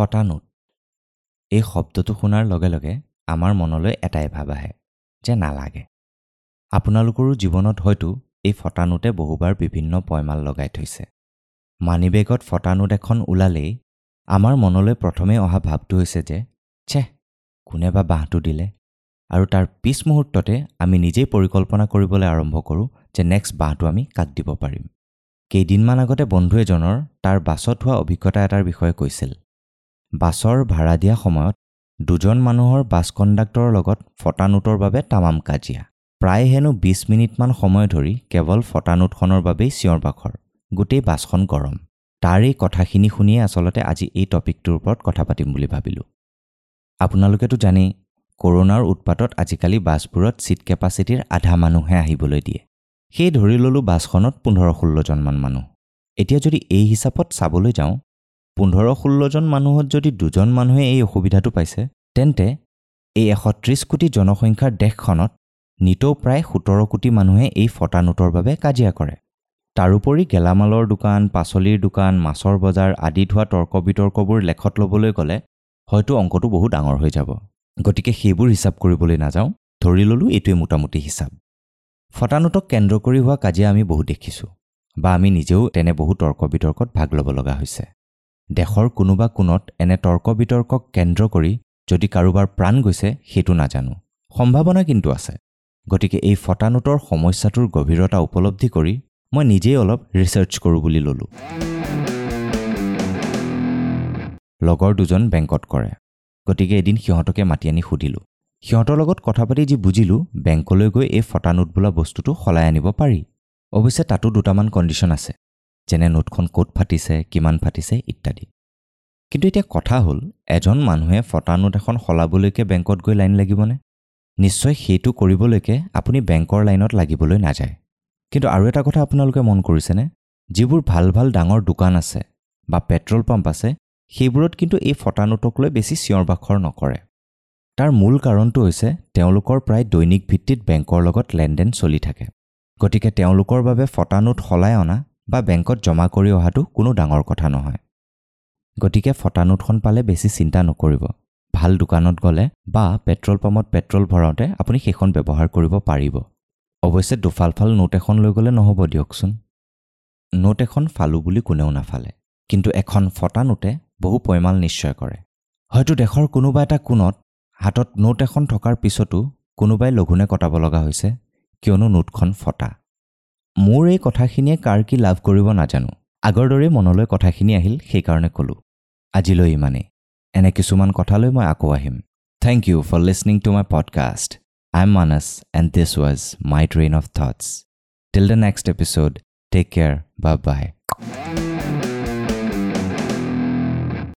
ফটা নোট এই শব্দটো শুনাৰ লগে লগে আমাৰ মনলৈ এটাই ভাৱ আহে যে নালাগে। আপোনালোকৰো জীৱনত হয়তো এই ফটা নোটে বহুবাৰ বিভিন্ন পয়মাল লগাই থৈছে। মানিবেগত ফটা নোট এখন ওলালেই আমাৰ মনলৈ প্ৰথমে অহা ভাৱটো হৈছে যে ছেহ, কোনে বা বাঁহটো দিলে, আৰু তাৰ পিছ মুহূৰ্ততে আমি নিজেই পৰিকল্পনা কৰিবলৈ আৰম্ভ কৰোঁ যে নেক্সট বাঁহটো আমি কাক দিব পাৰিম। কেইদিনমান আগতে বন্ধু এজনৰ তাৰ বাছত হোৱা অভিজ্ঞতা এটাৰ বিষয়ে কৈছিল। বাছৰ ভাড়া দিয়া সময়ত দুজন মানুহৰ বাছ কণ্ডাক্টৰৰ লগত ফটা নোটৰ বাবে তামাম কাজিয়া। প্ৰায় হেনো 20 মিনিটমান সময় ধৰি কেৱল ফটা নোটখনৰ বাবেই চিঞৰ বাখৰ, গোটেই বাছখন গৰম। তাৰ এই কথাখিনি শুনিয়ে আচলতে আজি এই টপিকটোৰ ওপৰত কথা পাতিম বুলি ভাবিলোঁ। আপোনালোকেতো জানেই, কৰোণাৰ উৎপাতত আজিকালি বাছবোৰত ছিট কেপাচিটিৰ আধা মানুহে আহিবলৈ দিয়ে। সেই ধৰি ল'লোঁ বাছখনত 15-16জনমান মানুহ। এতিয়া যদি এই হিচাপত চাবলৈ যাওঁ, 15-16জন মানুহত যদি দুজন মানুহে এই অসুবিধাটো পাইছে, তেন্তে এই 130 কোটি জনসংখ্যাৰ দেশখনত নিতৌ প্ৰায় 17 কোটি মানুহে এই ফটা নোটৰ বাবে কাজিয়া কৰে। তাৰোপৰি গেলামালৰ দোকান, পাচলিৰ দোকান, মাছৰ বজাৰ আদিত হোৱা তৰ্ক বিতৰ্কবোৰ লেখত ল'বলৈ গ'লে হয়তো অংকটো বহু ডাঙৰ হৈ যাব। গতিকে সেইবোৰ হিচাপ কৰিবলৈ নাযাওঁ, ধৰি ল'লোঁ এইটোৱে মোটামুটি হিচাপ। ফটা নোটক কেন্দ্ৰ কৰি হোৱা কাজিয়া আমি বহু দেখিছোঁ বা আমি নিজেও তেনে বহু তৰ্ক বিতৰ্কত ভাগ ল'ব লগা হৈছে। দেশৰ কোনোবা কোণত এনে তৰ্ক বিতৰ্কক কেন্দ্ৰ কৰি যদি কাৰোবাৰ প্ৰাণ গৈছে সেইটো নাজানো, সম্ভাৱনা কিন্তু আছে। গতিকে এই ফটা নোটৰ সমস্যাটোৰ গভীৰতা উপলব্ধি কৰি মই নিজেই অলপ ৰিচাৰ্চ কৰোঁ বুলি ল'লোঁ। লগৰ দুজন বেংকত কৰে, গতিকে এদিন সিহঁতকে মাতি আনি সুধিলোঁ। সিহঁতৰ লগত কথা পাতি যি বুজিলোঁ, বেংকলৈ গৈ এই ফটা নোট বোলা বস্তুটো সলাই আনিব পাৰি। অৱশ্যে তাতো দুটামান কণ্ডিশ্যন আছে, যেনে নোটখন ক'ত ফাটিছে, কিমান ফাটিছে ইত্যাদি। কিন্তু এতিয়া কথা হ'ল, এজন মানুহে ফটা নোট এখন সলাবলৈকে বেংকত গৈ লাইন লাগিবনে? নিশ্চয় সেইটো কৰিবলৈকে আপুনি বেংকৰ লাইনত লাগিবলৈ নাযায়। কিন্তু আৰু এটা কথা আপোনালোকে মন কৰিছেনে? যিবোৰ ভাল ভাল ডাঙৰ দোকান আছে বা পেট্ৰল পাম্প আছে, সেইবোৰত কিন্তু এই ফটা নোটক লৈ বেছি চিঞৰ বাখৰ নকৰে। তাৰ মূল কাৰণটো হৈছে তেওঁলোকৰ প্ৰায় দৈনিক ভিত্তিত বেংকৰ লগত লেনদেন চলি থাকে। গতিকে তেওঁলোকৰ বাবে ফটা নোট সলাই অনা বা বেংকত জমা কৰি অহাটো কোনো ডাঙৰ কথা নহয়। গতিকে ফটা নোটখন পালে বেছি চিন্তা নকৰিব। ভাল দোকানত গ'লে বা পেট্ৰল পাম্পত পেট্ৰল ভৰাওঁতে আপুনি সেইখন ব্যৱহাৰ কৰিব পাৰিব। অৱশ্যে দুফালফাল নোট এখন লৈ গ'লে নহ'ব দিয়কচোন। নোট এখন ফালোঁ বুলি কোনেও নাফালে, কিন্তু এখন ফটা নোটে বহু পয়মাল নিশ্চয় কৰে। হয়তো দেশৰ কোনোবা এটা কোণত হাতত নোট এখন থকাৰ পিছতো কোনোবাই লঘোণে কটাব লগা হৈছে, কিয়নো নোটখন ফটা। মোৰ এই কথাখিনিয়ে কাৰ কি লাভ কৰিব নাজানো, আগৰ দৰেই মনলৈ কথাখিনি আহিল, সেইকাৰণে ক'লোঁ। আজিলৈ ইমানেই। এনে কিছুমান কথালৈ মই আকৌ আহিম। Thank you for listening to my podcast. I am Manas and this was my train of thoughts. Till the next episode, take care, bye bye.